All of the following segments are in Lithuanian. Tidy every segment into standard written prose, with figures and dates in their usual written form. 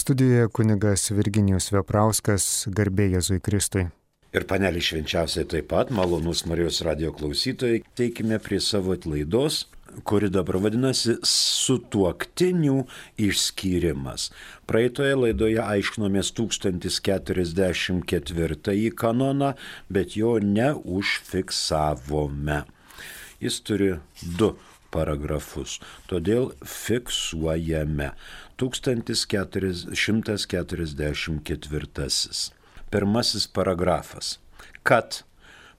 Studijoje kunigas Virginijus Veprauskas, garbė Jėzui Kristui. Ir panelį švenčiausiai taip pat, malonus Marijos radijo klausytojai, teikime prie savo laidos, kuri dabar vadinasi Sutuoktinių išskyrimas. Praeitoje laidoje aiškinomės 1044 kanoną, bet jo neužfiksavome. Jis turi 2 paragrafus, todėl fiksuojame 1144. Pirmasis paragrafas. Kad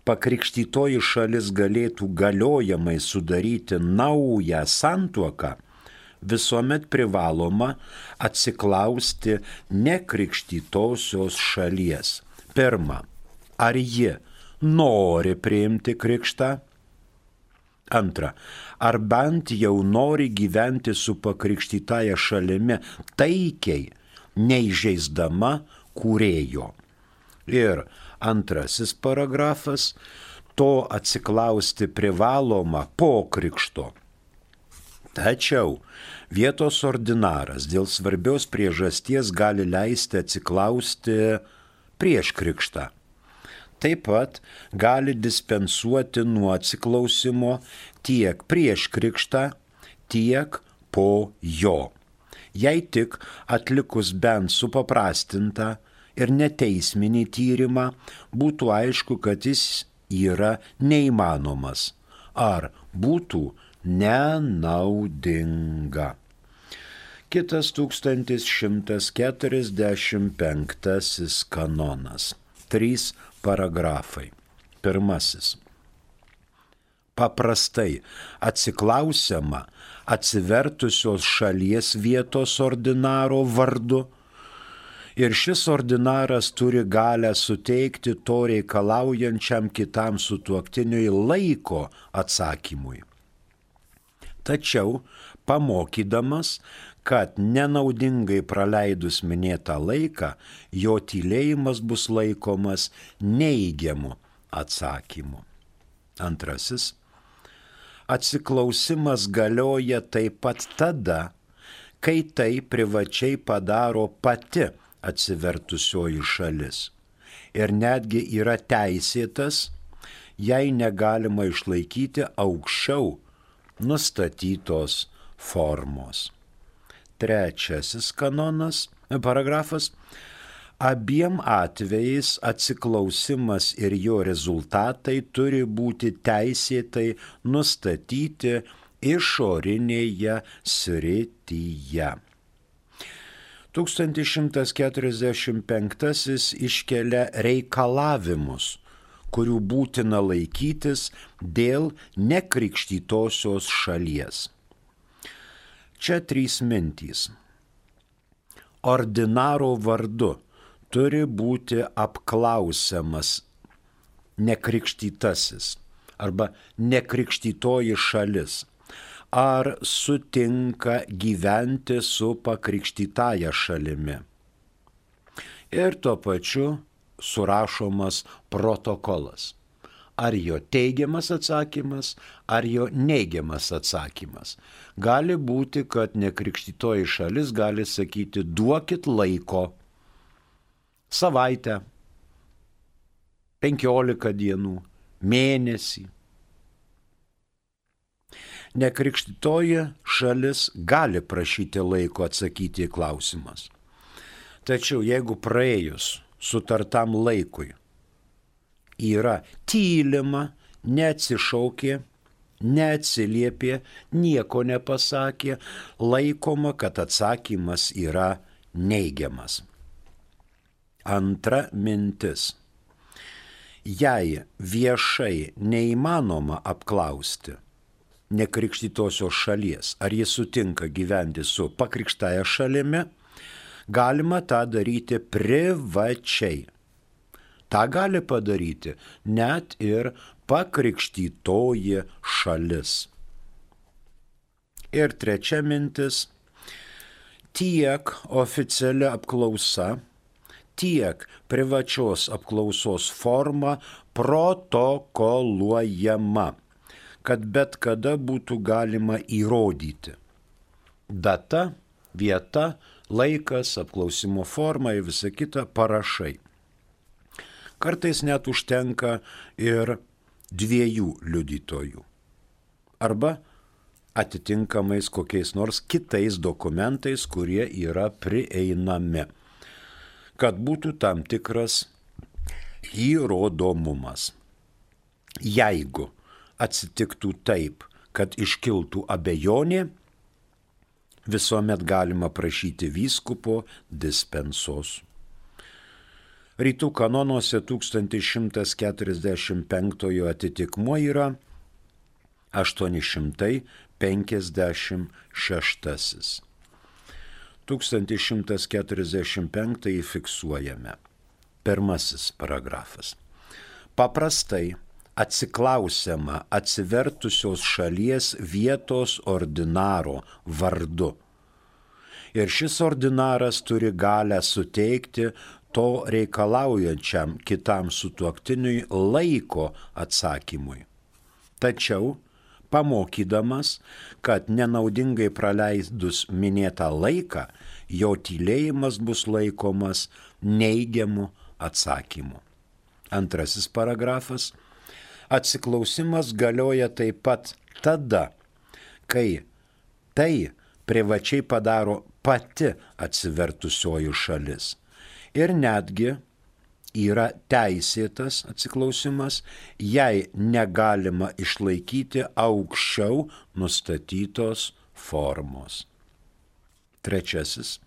pakrikštytoji šalis galėtų galiojamai sudaryti naują santuoką, visuomet privaloma atsiklausti nekrikštytosios šalies. Pirma, ar ji nori priimti krikštą? Antra, ar bent jau nori gyventi su pakrikštytaja šalimi taikiai, neįžeisdama kūrėjo. Ir antrasis paragrafas, to atsiklausti privaloma po krikšto. Tačiau vietos ordinaras dėl svarbios priežasties gali leisti atsiklausti prieš krikštą. Taip pat gali dispensuoti nuo atsiklausimo tiek prieš krikštą, tiek po jo. Jei tik atlikus bent supaprastintą ir neteisminį tyrimą, būtų aišku, kad jis yra neįmanomas ar būtų nenaudinga. Kitas 1145 kanonas. 3 paragrafai. Pirmasis. Paprastai atsiklausiama atsivertusios šalies vietos ordinaro vardu ir šis ordinaras turi galę suteikti to reikalaujančiam kitam sutuoktiniui laiko atsakymui. Tačiau pamokydamas, kad nenaudingai praleidus minėtą laiką, jo tylėjimas bus laikomas neigiamu atsakymu. Antrasis. Atsiklausimas galioja taip pat tada, kai tai privačiai padaro pati atsivertusioji šalis. Ir netgi yra teisėtas, jei negalima išlaikyti aukščiau nustatytos formos. Trečiasis paragrafas. Abiem atvejais atsiklausimas ir jo rezultatai turi būti teisėtai nustatyti išorinėje srityje. 1145 iškelia reikalavimus, kurių būtina laikytis dėl nekrikštytosios šalies. Čia 3 mintys. Ordinaro vardu turi būti apklausiamas nekrikštytasis arba nekrikštytoji šalis, ar sutinka gyventi su pakrikštytaja šalimi. Ir tuo pačiu surašomas protokolas. Ar jo teigiamas atsakymas, ar jo neigiamas atsakymas. Gali būti, kad nekrikštytoji šalis gali sakyti, duokit laiko, savaitę, 15 dienų, mėnesį. Nekrikštytoji šalis gali prašyti laiko atsakyti į klausimus. Tačiau jeigu praėjus sutartam laikui yra tylima, neatsišaukė, neatsiliepė, nieko nepasakė, laikoma, kad atsakymas yra neigiamas. Antra mintis. Jei viešai neįmanoma apklausti nekrikštytosios šalies, ar jis sutinka gyventi su pakrikštaja šalimi, galima tą daryti privačiai. Ta gali padaryti net ir pakrikštytoji šalis. Ir trečia mintis. Tiek oficiali apklausa, tiek privačios apklausos forma protokoluojama, kad bet kada būtų galima įrodyti. Data, vieta, laikas, apklausimo forma ir visa kita parašai. Kartais net užtenka ir 2 liudytojų. Arba atitinkamais kokiais nors kitais dokumentais, kurie yra prieinami, kad būtų tam tikras įrodomumas. Jeigu atsitiktų taip, kad iškiltų abejonė, visuomet galima prašyti vyskupo dispensos. Rytų kanonuose 1145 atitikmuo yra 856. 1145 fiksuojame. Pirmasis paragrafas. Paprastai atsiklausiama atsivertusios šalies vietos ordinaro vardu. Ir šis ordinaras turi galę suteikti to reikalaujančiam kitam sutuoktiniui laiko atsakymui. Tačiau, pamokydamas, kad nenaudingai praleidus minėtą laiką, jo tylėjimas bus laikomas neigiamu atsakymu. Antrasis paragrafas. Atsiklausimas galioja taip pat tada, kai tai privačiai padaro pati atsivertusioji šalis. Ir netgi yra teisėtas atsiklausimas, jei negalima išlaikyti aukščiau nustatytos formos. Trečiasis.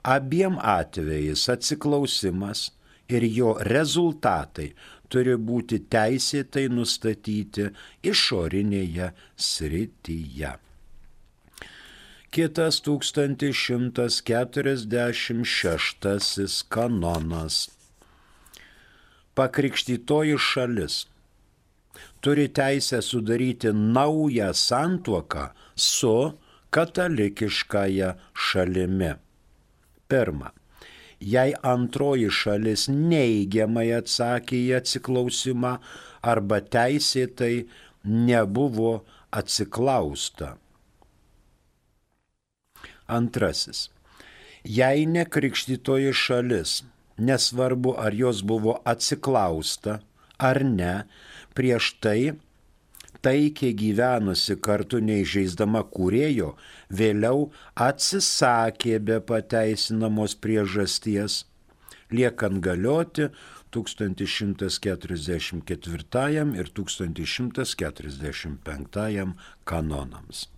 Abiem atvejais atsiklausimas ir jo rezultatai turi būti teisėtai nustatyti išorinėje srityje. Kitas 1146 kanonas. Pakrikštytoji šalis turi teisę sudaryti naują santuoką su katalikiškąja šalimi. Pirma. Jei antroji šalis neigiamai atsakė į atsiklausimą arba teisėtai nebuvo atsiklausta. Antrasis. Jei nekrikštytoji šalis, nesvarbu ar jos buvo atsiklausta ar ne, prieš tai taikiai gyvenusi kartu neįžeisdama kūrėjo, vėliau atsisakė be pateisinamos priežasties, liekant galioti 1144 ir 1145 kanonams.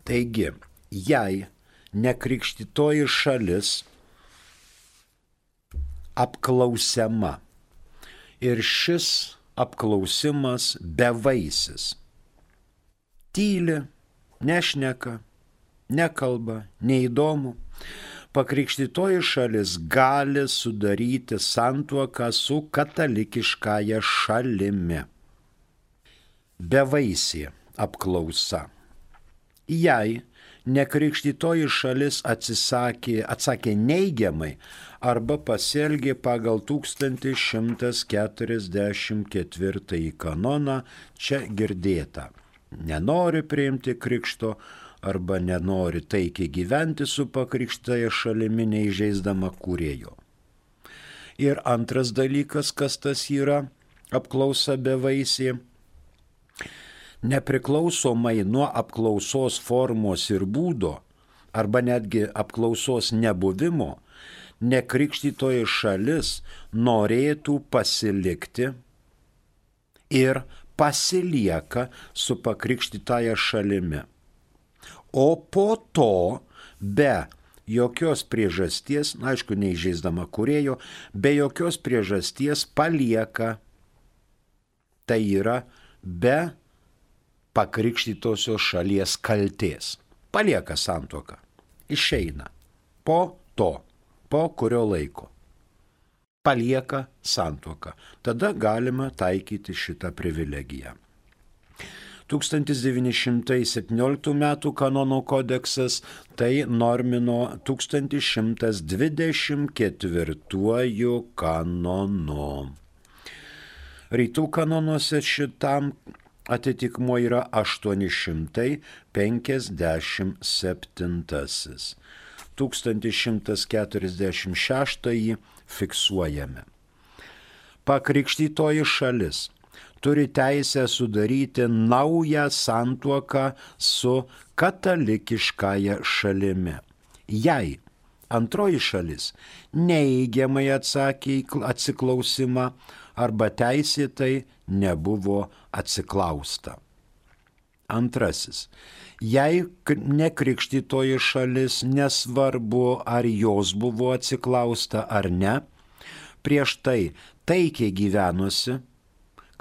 Taigi, jei nekrikštytoji šalis apklausiama ir šis apklausimas bevaisis, tyli, nešneka, nekalba, neįdomu, pakrikštytoji šalis gali sudaryti santuoką su katalikiškąja šalimi. Bevaisė apklausa. Jei nekrikštytoji šalis atsakė neigiamai arba pasielgė pagal 1144 kanoną, čia girdėta. Nenori priimti krikšto arba nenori taikiai gyventi su pakrikštytoja šalimi neįžeisdama kūrėjo. Ir antras dalykas, kas tas yra apklausa bevaisė. Nepriklausomai nuo apklausos formos ir būdo, arba netgi apklausos nebuvimo, nekrikštytoji šalis norėtų pasilikti ir pasilieka su pakrikštytaja šalimi. O po to, be jokios priežasties, aišku, neįžeisdama kūrėjo, be jokios priežasties palieka, tai yra be pakrikštytosios šalies kaltės. Palieka santuoką, išeina. Po to, po kurio laiko. Palieka santuoką. Tada galima taikyti šitą privilegiją. 1917 m. Kanonų kodeksas tai normino 1124 kanonu. Rytų kanonuose šitam atitikmuo yra 857. 1146 fiksuojame. Pakrikštytoji šalis turi teisę sudaryti naują santuoką su katalikiškąja šalimi. Jei antroji šalis neigiamai atsakė į atsiklausimą arba teisėtai nebuvo atsiklausta. Antrasis. Jei nekrikštytoji šalis, nesvarbu ar jos buvo atsiklausta ar ne, prieš tai taikiai gyvenusi,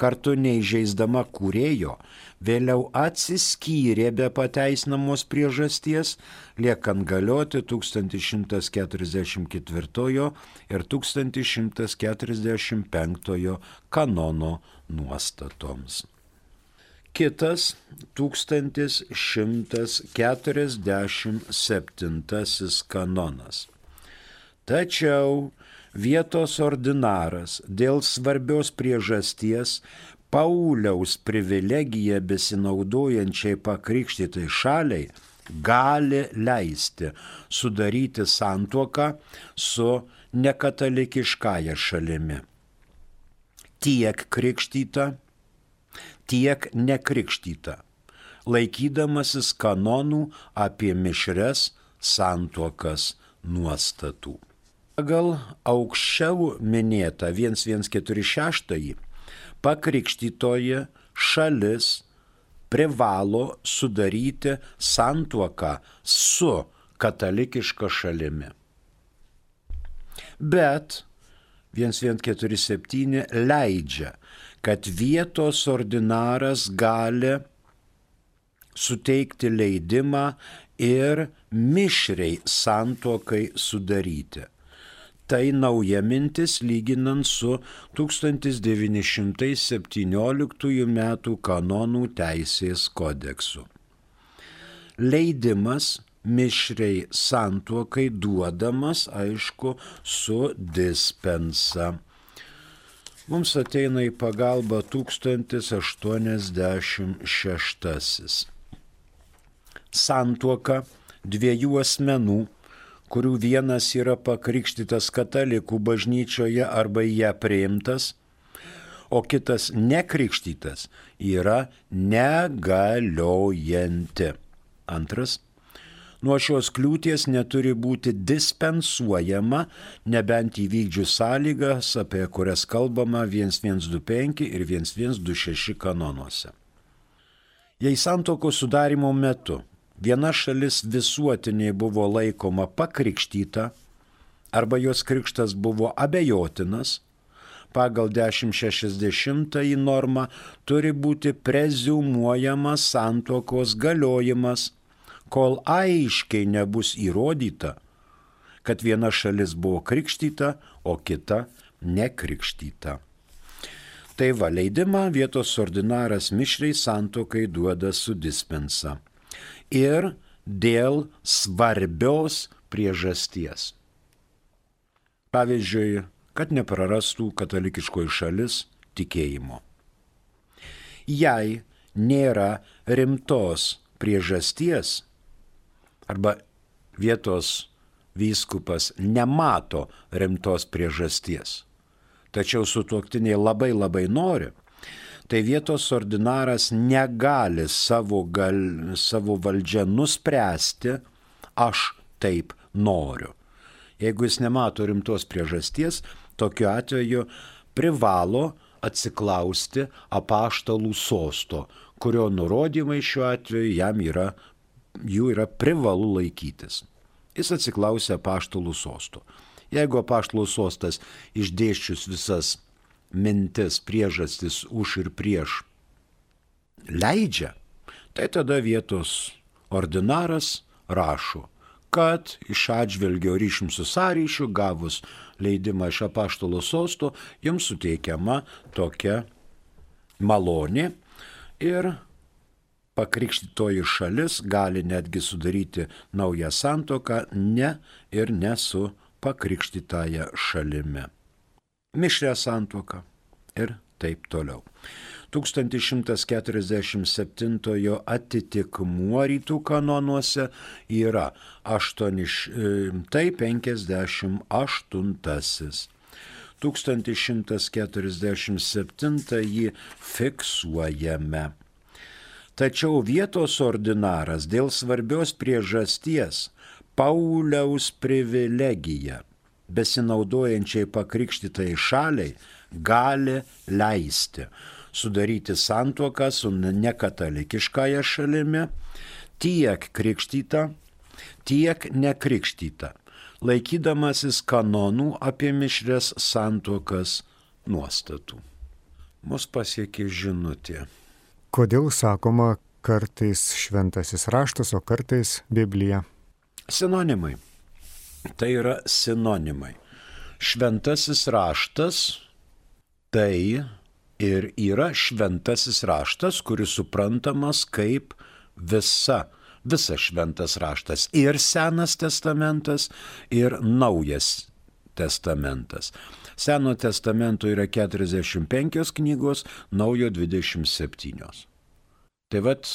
kartu neįžeisdama kūrėjo, vėliau atsiskyrė be pateisinamos priežasties, liekant galioti 1144 ir 1145 kanono nuostatoms. Kitas 1147 kanonas. Tačiau vietos ordinaras dėl svarbios priežasties Pauliaus privilegiją besinaudojančiai pakrikštytai šaliai gali leisti sudaryti santuoką su nekatalikiškąja šalimi. Tiek krikštyta, tiek nekrikštyta, laikydamasis kanonų apie mišrias santuokas nuostatų. Pagal aukščiau minėtą 1146 pakrikštytoji šalis privalo sudaryti santuoką su katalikiška šalimi. Bet 1147 leidžia, kad vietos ordinaras gali suteikti leidimą ir mišriai santuokai sudaryti. Tai nauja mintis lyginant su 1917 metų kanonų teisės kodeksu. Leidimas mišriai santuokai duodamas, aišku, su dispensa. Mums ateina į pagalbą 1086. Santuoka dviejų asmenų, kurių vienas yra pakrikštytas katalikų bažnyčioje arba į ją priimtas, o kitas nekrikštytas, yra negaliojanti. Antras. Nuo šios kliūties neturi būti dispensuojama, nebent įvykdžius sąlygas, apie kurias kalbama 1125 ir 1126 kanonuose. Jei santuokos sudarimo metu viena šalis visuotiniai buvo laikoma pakrikštyta arba jos krikštas buvo abejotinas, pagal 1060 normą turi būti preziumuojamas santuokos galiojimas, kol aiškiai nebus įrodyta, kad viena šalis buvo krikštyta, o kita nekrikštyta. Tai va, leidimą vietos ordinaras mišriai santuokai duoda su dispensa. Ir dėl svarbios priežasties. Pavyzdžiui, kad neprarastų katalikiškoji šalis tikėjimo. Jei nėra rimtos priežasties, arba vietos vyskupas nemato rimtos priežasties, tačiau sutuoktiniai labai nori, tai vietos ordinaras negali savo valdžią nuspręsti, aš taip noriu. Jeigu jis nemato rimtos priežasties, tokiu atveju privalo atsiklausti apaštalų sosto, kurio nurodymai šiuo atveju jų yra privalu laikytis. Jis atsiklausė apaštalų sosto. Jeigu apaštalų sostas išdėsčius visas mintis, priežastis už ir prieš leidžia, tai tada vietos ordinaras rašo, kad iš atžvelgio ryšium su sąryšiu gavus leidimą iš apaštalų sosto, jums suteikiama tokia malonė ir pakrikštytoji šalis gali netgi sudaryti naują santuoką ne su pakrikštytąja šalimi. Mišrią santuoką ir taip toliau. 1147 atitikmuo rytų kanonuose yra 858. 1147 jį fiksuojame. Tačiau vietos ordinaras dėl svarbios priežasties Pauliaus privilegiją besinaudojančiai pakrikštytai šaliai gali leisti sudaryti santuoką su nekatalikiškąja šalimi tiek krikštyta, tiek nekrikštyta, laikydamasis kanonų apie mišrias santuokas nuostatų. Mus pasiekė žinutė. Kodėl sakoma kartais šventasis raštas, o kartais Biblija? Sinonimai. Tai yra sinonimai. Šventasis raštas tai ir yra šventasis raštas, kuris suprantamas kaip visas šventas raštas. Ir Senas testamentas, ir Naujas testamentas. Seno testamento yra 45 knygos, Naujo 27. Tai vat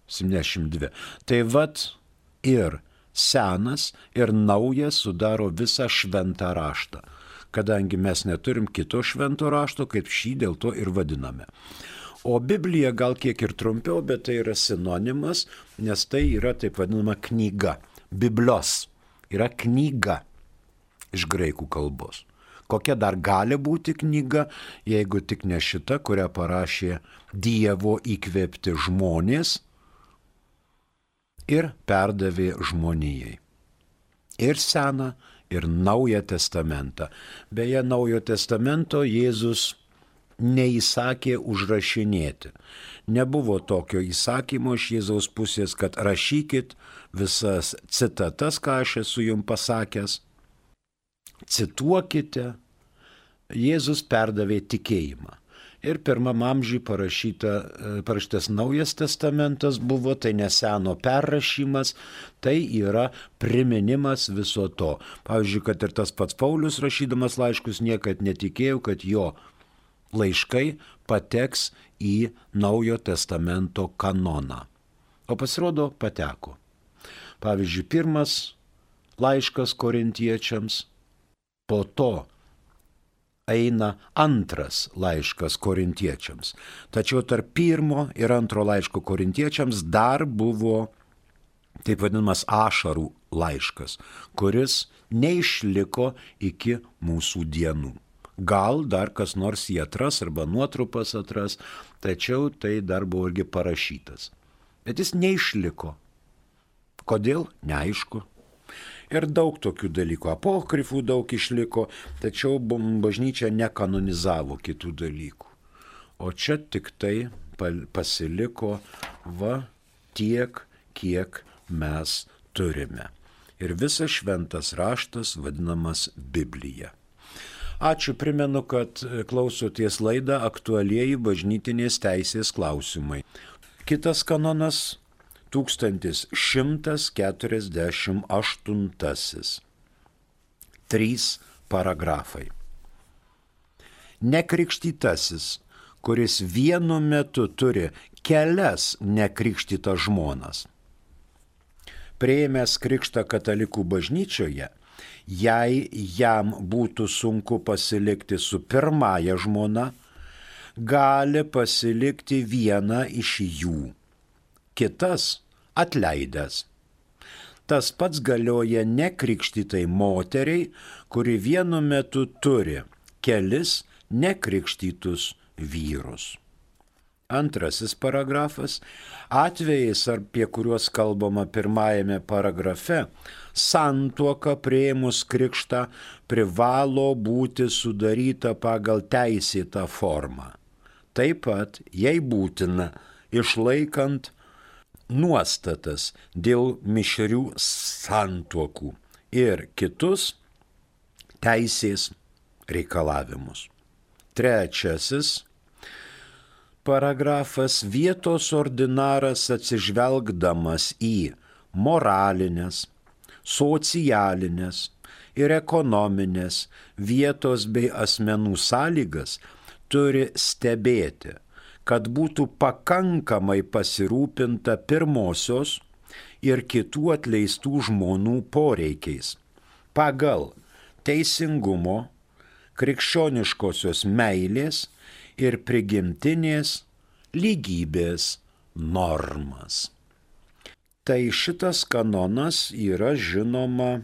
72. Tai vat ir Senas ir Naujas sudaro visą šventą raštą. Kadangi mes neturim kito švento rašto, kaip šį dėl to ir vadiname. O Biblija gal kiek ir trumpiau, bet tai yra sinonimas, nes tai yra taip vadinama knyga. Biblos yra knyga iš graikų kalbos. Kokia dar gali būti knyga, jeigu tik ne šita, kurią parašė Dievo įkvėpti žmonės ir perdavė žmonijai. Ir Seną, ir Naują testamentą. Beje, Naujo testamento Jėzus neįsakė užrašinėti. Nebuvo tokio įsakymo iš Jėzaus pusės, kad rašykit visas citatas, ką aš esu jums pasakęs. Cituokite. Jėzus perdavė tikėjimą. Ir pirmam amžiui parašytas Naujas testamentas buvo, tai ne Seno perrašymas, tai yra priminimas viso to. Pavyzdžiui, kad ir tas pats Paulius rašydamas laiškus niekad netikėjo, kad jo laiškai pateks į Naujo testamento kanoną. O pasirodo, pateko. Pavyzdžiui, pirmas laiškas korintiečiams, po to eina antras laiškas korintiečiams. Tačiau tarp pirmo ir antro laiško korintiečiams dar buvo taip vadinamas ašarų laiškas, kuris neišliko iki mūsų dienų. Gal dar kas nors jį atras arba nuotrupas atras, tačiau tai dar buvo irgi parašytas. Bet jis neišliko. Kodėl? Neaišku. Ir daug tokių dalykų. Apokrifų daug išliko, tačiau bažnyčia nekanonizavo kitų dalykų. O čia tik tai pasiliko tiek, kiek mes turime. Ir visas šventas raštas vadinamas Biblija. Ačiū, primenu, kad klausoties laidą Aktualieji bažnytinės teisės klausimai. Kitas kanonas 1148. 3 paragrafai. Nekrikštytasis, kuris vienu metu turi kelias nekrikštytas žmonas. Priėmęs krikštą katalikų bažnyčioje, jei jam būtų sunku pasilikti su pirmąja žmona, gali pasilikti vieną iš jų. Kitas atleidęs. Tas pats galioja nekrikštytai moteriai, kuri vienu metu turi kelis nekrikštytus vyrus. Antrasis paragrafas. Atvejais, apie kuriuos kalbama pirmajame paragrafe, santuoka priėmus krikštą privalo būti sudaryta pagal teisėtą formą. Taip pat, jei būtina, išlaikant nuostatas dėl mišrių santuokų ir kitus teisės reikalavimus. Trečiasis paragrafas. Vietos ordinaras atsižvelgdamas į moralinės, socialinės ir ekonominės vietos bei asmenų sąlygas turi stebėti, kad būtų pakankamai pasirūpinta pirmosios ir kitų atleistų žmonų poreikiais pagal teisingumo, krikščioniškosios meilės ir prigimtinės lygybės normas. Tai šitas kanonas yra žinoma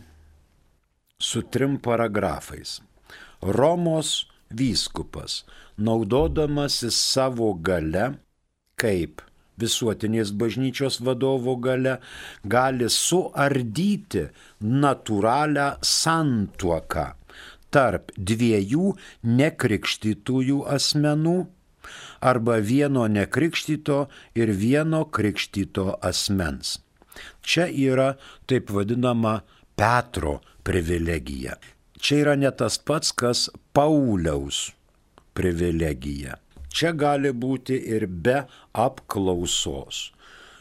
su 3 paragrafais. Romos vyskupas, naudodamasis savo gale, kaip visuotinės bažnyčios vadovo gale, gali suardyti natūralią santuoką tarp 2 nekrikštytųjų asmenų arba vieno nekrikštyto ir vieno krikštyto asmens. Čia yra taip vadinama Petro privilegija. Čia yra ne tas pats, kas Pauliaus privilegija. Čia gali būti ir be apklausos.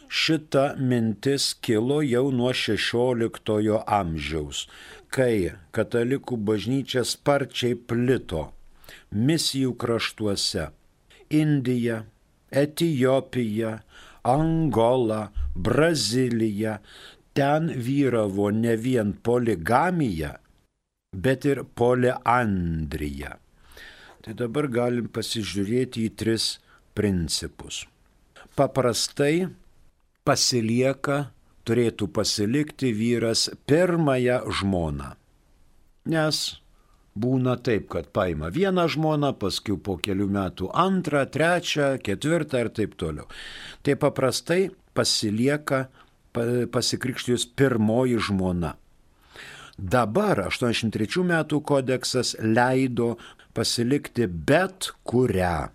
Šita mintis kilo jau nuo 16 amžiaus, kai katalikų bažnyčia sparčiai plito misijų kraštuose – Indija, Etijopija, Angola, Brazilija. Ten vyravo ne vien poligamija, bet ir poliandrija. Tai dabar galim pasižiūrėti į 3 principus. Paprastai turėtų pasilikti vyras pirmąją žmoną. Nes būna taip, kad paima vieną žmoną, paskui po kelių metų 2, 3, 4 ir taip toliau. Tai paprastai pasikrikštijus pirmoji žmona. Dabar 83 metų kodeksas leido pasilikti bet kurią,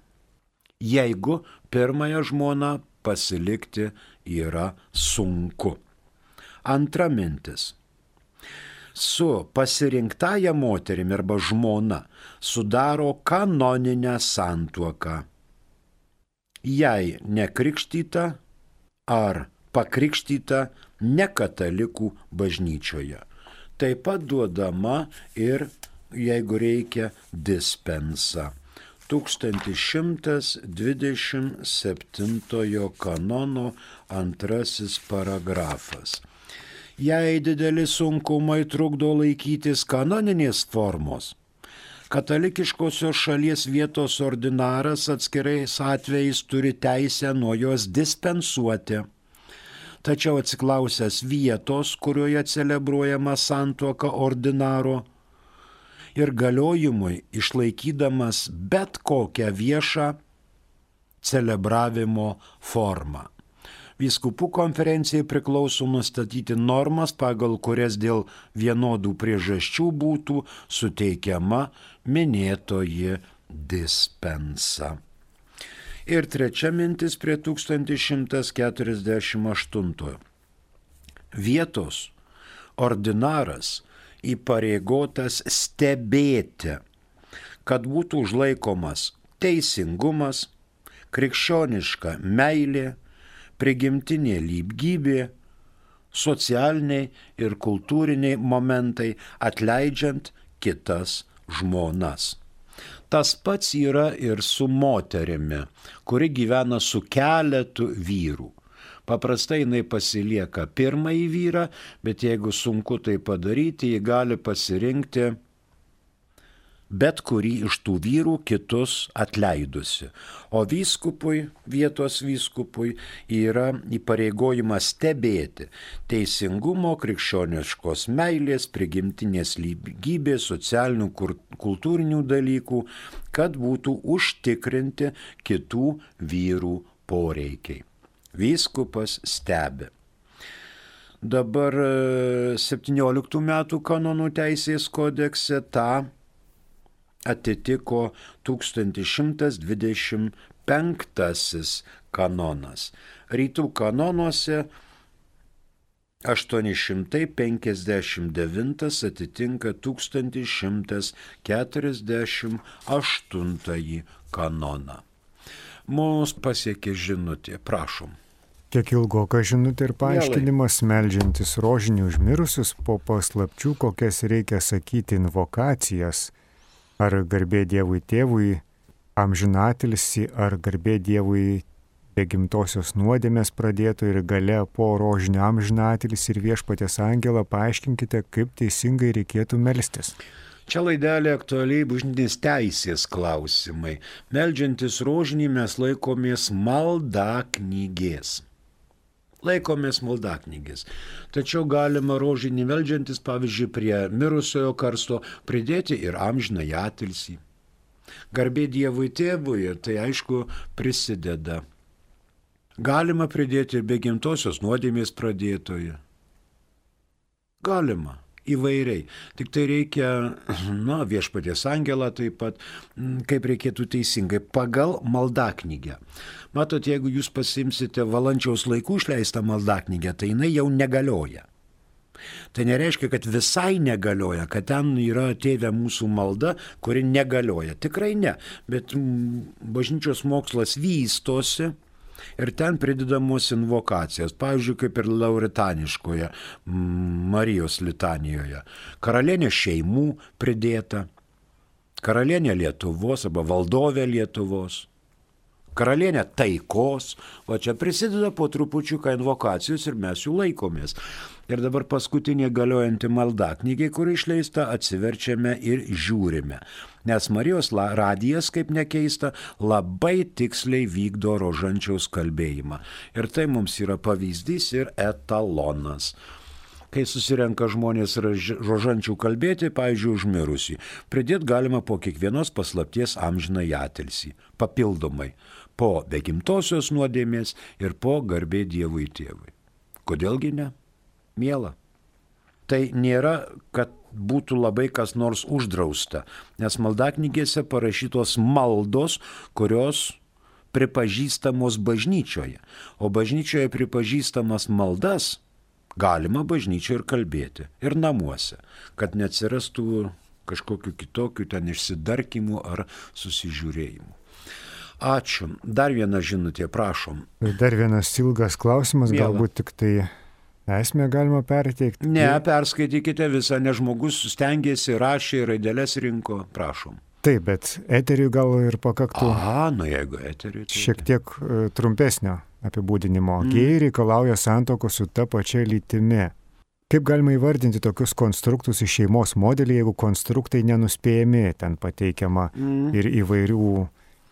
jeigu pirmąją žmoną pasilikti yra sunku. Antra mintis. Su pasirinktąja moterimi arba žmona sudaro kanoninę santuoką. Jei nekrikštyta ar pakrikštyta nekatalikų bažnyčioje. Taip pat duodama ir, jeigu reikia, dispensa. 1127 kanono 2 paragrafas. Jei dideli sunkumai trukdo laikytis kanoninės formos, katalikiškosios šalies vietos ordinaras atskirais atvejais turi teisę nuo jos dispensuoti. Tačiau atsiklausęs vietos, kurioje celebruojama santuoka ordinaro ir galiojimui išlaikydamas bet kokią viešą celebravimo formą. Vyskupų konferencijai priklauso nustatyti normas, pagal kurias dėl vienodų priežasčių būtų suteikiama minėtoji dispensa. Ir 3 mintis prie 1148. Vietos ordinaras įpareigotas stebėti, kad būtų užlaikomas teisingumas, krikščioniška meilė, prigimtinė lygybė, socialiniai ir kultūriniai momentai, atleidžiant kitas žmonas. Tas pats yra ir su moterimi, kuri gyvena su keletu vyrų. Paprastai jinai pasilieka pirmąjį vyrą, bet jeigu sunku tai padaryti, ji gali pasirinkti bet kurį iš tų vyrų kitus atleidusi. O vyskupui, vietos vyskupui yra įpareigojimas stebėti teisingumo, krikščioniškos meilės, prigimtinės lygybės, socialinių, kultūrinių dalykų, kad būtų užtikrinti kitų vyrų poreikiai. Vyskupas stebi. Dabar 17 metų kanonų teisės kodekse tą atitiko 1125 kanonas. Rytų kanonuose 859 atitinka 1148 kanoną. Mums pasiekė žinutė, prašom. Kiek ilgoka žinutė ir paaiškinimas, meldžiantis rožinį už mirusius po paslapčių, kokias reikia sakyti invokacijas, ar garbė Dievui Tėvui, amžinatilsį ar garbė Dievui be gimtosios nuodėmės pradėto ir gale po rožinio amžinatilsį ir Viešpaties angelą, paaiškinkite, kaip teisingai reikėtų melstis. Čia laidelė aktualiai bažnytinės teisės klausimai. Meldžiantis rožinį mes laikomės maldaknygės. Tačiau galima rožinį meldžiantis, pavyzdžiui, prie mirusiojo karsto pridėti ir amžinąjį atilsį. Garbė Dievui Tėvui, tai aišku prisideda. Galima pridėti ir be gimtosios nuodėmės pradėtoje. Galima. Įvairiai. Tik tai reikia, Viešpaties angelą taip pat, kaip reikėtų teisingai, pagal maldaknygę. Matot, jeigu jūs pasimsite Valančiaus laikų išleistą maldaknygę, tai jinai jau negalioja. Tai nereiškia, kad visai negalioja, kad ten yra Tėve mūsų malda, kuri negalioja. Tikrai ne, bet bažnyčios mokslas vystosi. Ir ten pridedamos invokacijas, pavyzdžiui, kaip ir lauritaniškoje Marijos litanijoje. Karalienė šeimų pridėta, karalienė Lietuvos arba valdovė Lietuvos, karalienė taikos, o čia prisideda po trupučiuką invokacijos ir mes jų laikomės. Ir dabar paskutinė galiojanti maldaknygė, kuri išleista, atsiverčiame ir žiūrime. Nes Marijos radijas, kaip nekeista, labai tiksliai vykdo rožančiaus kalbėjimą. Ir tai mums yra pavyzdys ir etalonas. Kai susirenka žmonės rožančių kalbėti, pavyzdžiui, užmirusį, pridėti galima po kiekvienos paslapties amžinąjį atilsį, papildomai, po be gimtosios nuodėmės ir po garbė Dievui Tėvui. Kodėlgi ne? Miela. Tai nėra, kad būtų labai kas nors uždrausta, nes maldaknygėse parašytos maldos, kurios pripažįstamos bažnyčioje, o bažnyčioje pripažįstamas maldas galima bažnyčioje ir kalbėti, ir namuose, kad neatsirastų kažkokiu kitokiu ten išsidarkimų ar susižiūrėjimų. Ačiū. Dar viena žinutė, prašom. Dar vienas ilgas klausimas, Miela. Galbūt tik tai esmę galima perteikti. Ne, perskaitykite visą, nes žmogus stengiasi, rašė, raideles rinko, prašom. Taip, bet eteriui gal ir pakaktų. Jeigu eteriui. Tai... Šiek tiek trumpesnio apibūdinimo. Gėjai reikalauja santuokos su ta pačia lytimi. Kaip galima įvardinti tokius konstruktus iš šeimos modelį, jeigu konstruktai nenuspėjami, ten pateikiama ir įvairių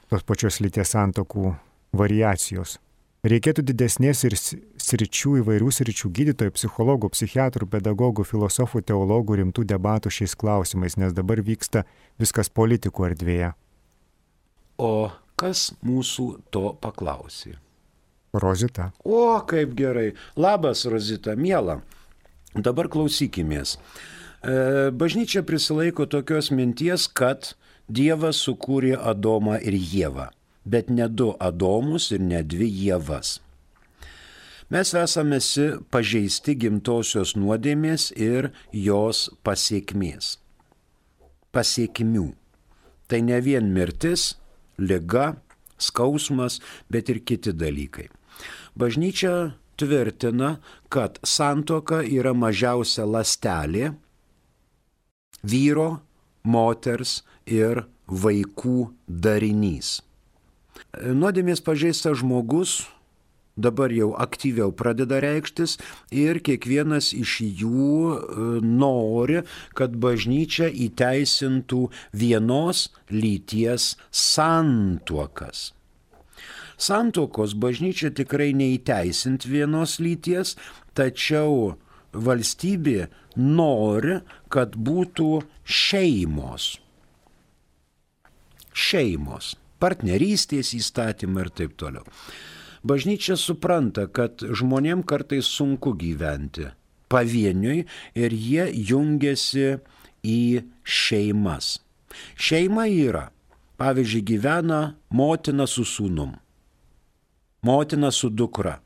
tos pačios lyties santuokų variacijos. Reikėtų didesnės ir įvairių sričių gydytojų, psichologų, psichiatrų, pedagogų, filosofų, teologų rimtų debatų šiais klausimais, nes dabar vyksta viskas politikų erdvėje. O kas mūsų to paklausė? Rozita. O, kaip gerai. Labas, Rozita, miela. Dabar klausykimės. Bažnyčia prisilaiko tokios minties, kad Dievas sukūrė Adomą ir Ievą. Bet ne du Adomus ir ne dvi Ievas. Mes esame pažeisti gimtosios nuodėmės ir jos pasiekmės. Pasiekmių. Tai ne vien mirtis, liga, skausmas, bet ir kiti dalykai. Bažnyčia tvirtina, kad santuoka yra mažiausia ląstelė vyro, moters ir vaikų darinys. Nuodėmės pažeistas žmogus dabar jau aktyviau pradeda reikštis ir kiekvienas iš jų nori, kad bažnyčia įteisintų vienos lyties santuokas. Santuokos bažnyčia tikrai neįteisint vienos lyties, tačiau valstybė nori, kad būtų šeimos. Šeimos. Partnerystės įstatymą ir taip toliau. Bažnyčia supranta, kad žmonėm kartais sunku gyventi pavieniui ir jie jungiasi į šeimas. Šeima yra, pavyzdžiui, gyvena motina su sūnum, motina su dukra.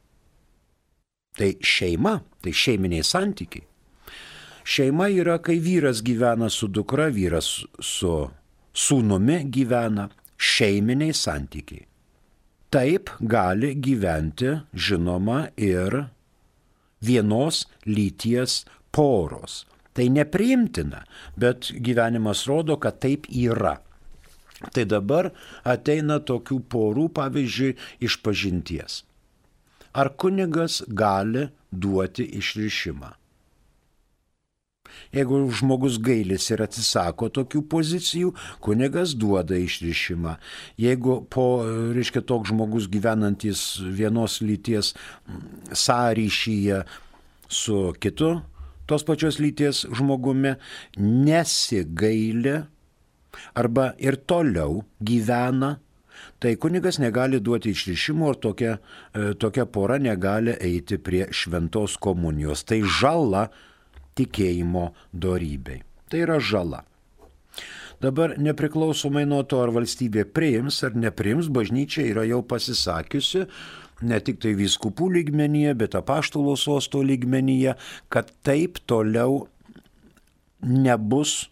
Tai šeima, tai šeiminiai santykiai. Šeima yra, kai vyras gyvena su dukra, vyras su sūnumi gyvena. Šeiminiai santykiai. Taip gali gyventi, žinoma, ir vienos lyties poros. Tai nepriimtina, bet gyvenimas rodo, kad taip yra. Tai dabar ateina tokių porų, pavyzdžiui, išpažinties. Ar kunigas gali duoti išrišimą? Jeigu žmogus gailis ir atsisako tokių pozicijų, kunigas duoda išrišimą. Jeigu toks žmogus gyvenantis vienos lyties sąryšyje su kitu tos pačios lyties žmogumi nesigaili arba ir toliau gyvena, tai kunigas negali duoti išrišimo ir tokia pora negali eiti prie šventos komunijos. Tai žala tikėjimo dorybei. Tai yra žala. Dabar nepriklausomai nuo to, ar valstybė priims ar nepriims, bažnyčia yra jau pasisakiusi, ne tik tai vyskupų lygmenyje, bet apaštalo sosto lygmenyje, kad taip toliau nebus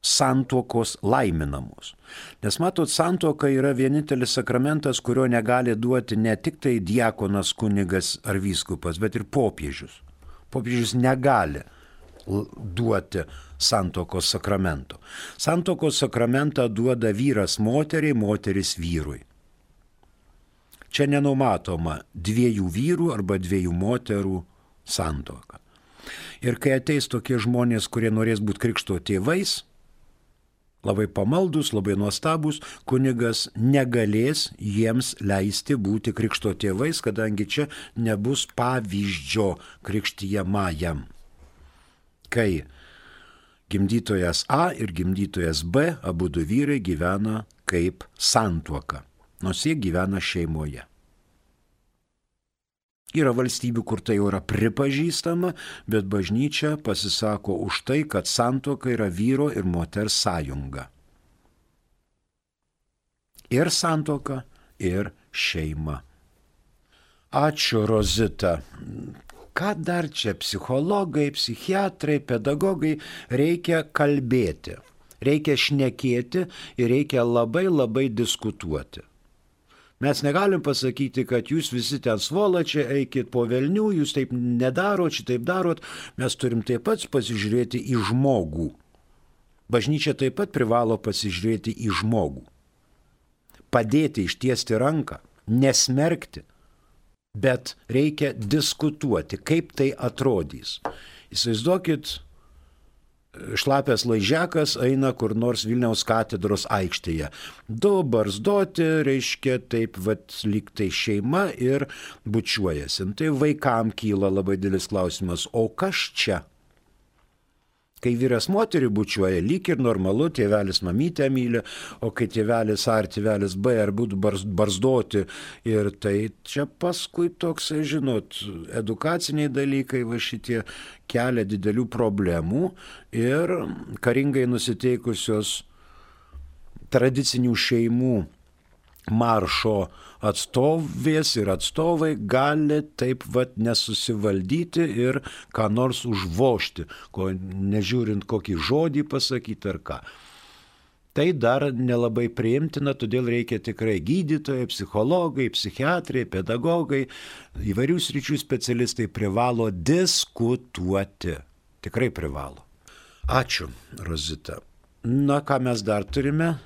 santuokos laiminamos. Nes matot, santuoka yra vienintelis sakramentas, kurio negali duoti ne tik tai diakonas, kunigas ar vyskupas, bet ir popiežius. Popiežius negali duoti santuokos sakramento. Santuokos sakramentą duoda vyras moteriai, moteris vyrui. Čia nenumatoma 2 vyrų arba 2 moterų santuoka. Ir kai ateis tokie žmonės, kurie norės būti krikšto tėvais, labai pamaldus, labai nuostabus, kunigas negalės jiems leisti būti krikšto tėvais, kadangi čia nebus pavyzdžio krikštijamajam. Kai gimdytojas A ir gimdytojas B, abudu vyrai gyvena kaip santuoka, nors jie gyvena šeimoje. Yra valstybių, kur tai jau yra pripažįstama, bet bažnyčia pasisako už tai, kad santuoka yra vyro ir moters sąjunga. Ir santuoka, ir šeima. Ačiū, Rozita. Ką dar čia psichologai, psichiatrai, pedagogai reikia kalbėti, reikia šnekėti ir reikia labai labai diskutuoti. Mes negalim pasakyti, kad jūs visi ten svolačiai, eikit po velnių, jūs taip nedarot, šitaip darot. Mes turim taip pat pasižiūrėti į žmogų. Bažnyčia taip pat privalo pasižiūrėti į žmogų. Padėti, ištiesti ranką, nesmerkti, bet reikia diskutuoti, kaip tai atrodys. Įsivaizduokit, šlapės laižiakas eina kur nors Vilniaus katedros aikštėje. 2 barzdoti, reiškia taip, lyg tai šeima ir bučiuojasi. Tai vaikam kyla labai didelis klausimas, o kas čia? Kai vyras moterį bučiuoja, lyg ir normalu, tėvelis mamytę myli, o kai tėvelis A ar tėvelis B ar būtų barzdoti, ir tai čia paskui toks, žinot, edukaciniai dalykai, va šitie kelia didelių problemų ir karingai nusiteikusios tradicinių šeimų maršo atstovės ir atstovai gali taip nesusivaldyti ir ką nors užvožti, nežiūrint kokį žodį pasakyti ar ką. Tai dar nelabai priimtina, todėl reikia tikrai gydytojai, psichologai, psichiatrai, pedagogai, įvairių sričių specialistai privalo diskutuoti. Tikrai privalo. Ačiū, Rozita. Na, ką mes dar turime?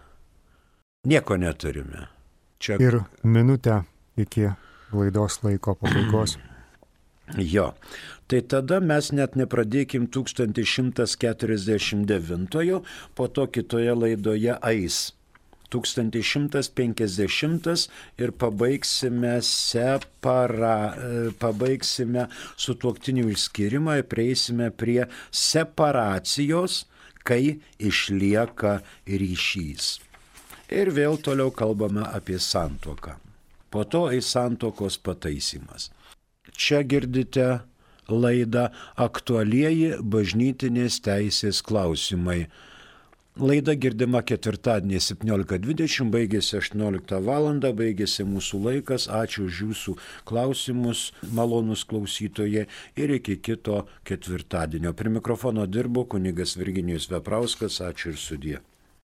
Nieko neturime. Čia... Ir minutę iki laidos laiko pabaigos. Jo, tai tada mes net nepradėkim 1149, po to kitoje laidoje eis 1150 ir pabaigsime sutuoktinių išskyrimą ir prieisime prie separacijos, kai išlieka ryšys. Ir vėl toliau kalbame apie santuoką. Po to eis santuokos pataisymas. Čia girdite laidą Aktualieji bažnytinės teisės klausimai. Laida girdima ketvirtadienį 17:20, baigėsi 18 val. Baigėsi mūsų laikas. Ačiū už jūsų klausimus, malonus klausytojai, ir iki kito ketvirtadienio. Prie mikrofono dirbo kunigas Virginijus Veprauskas. Ačiū ir sudie.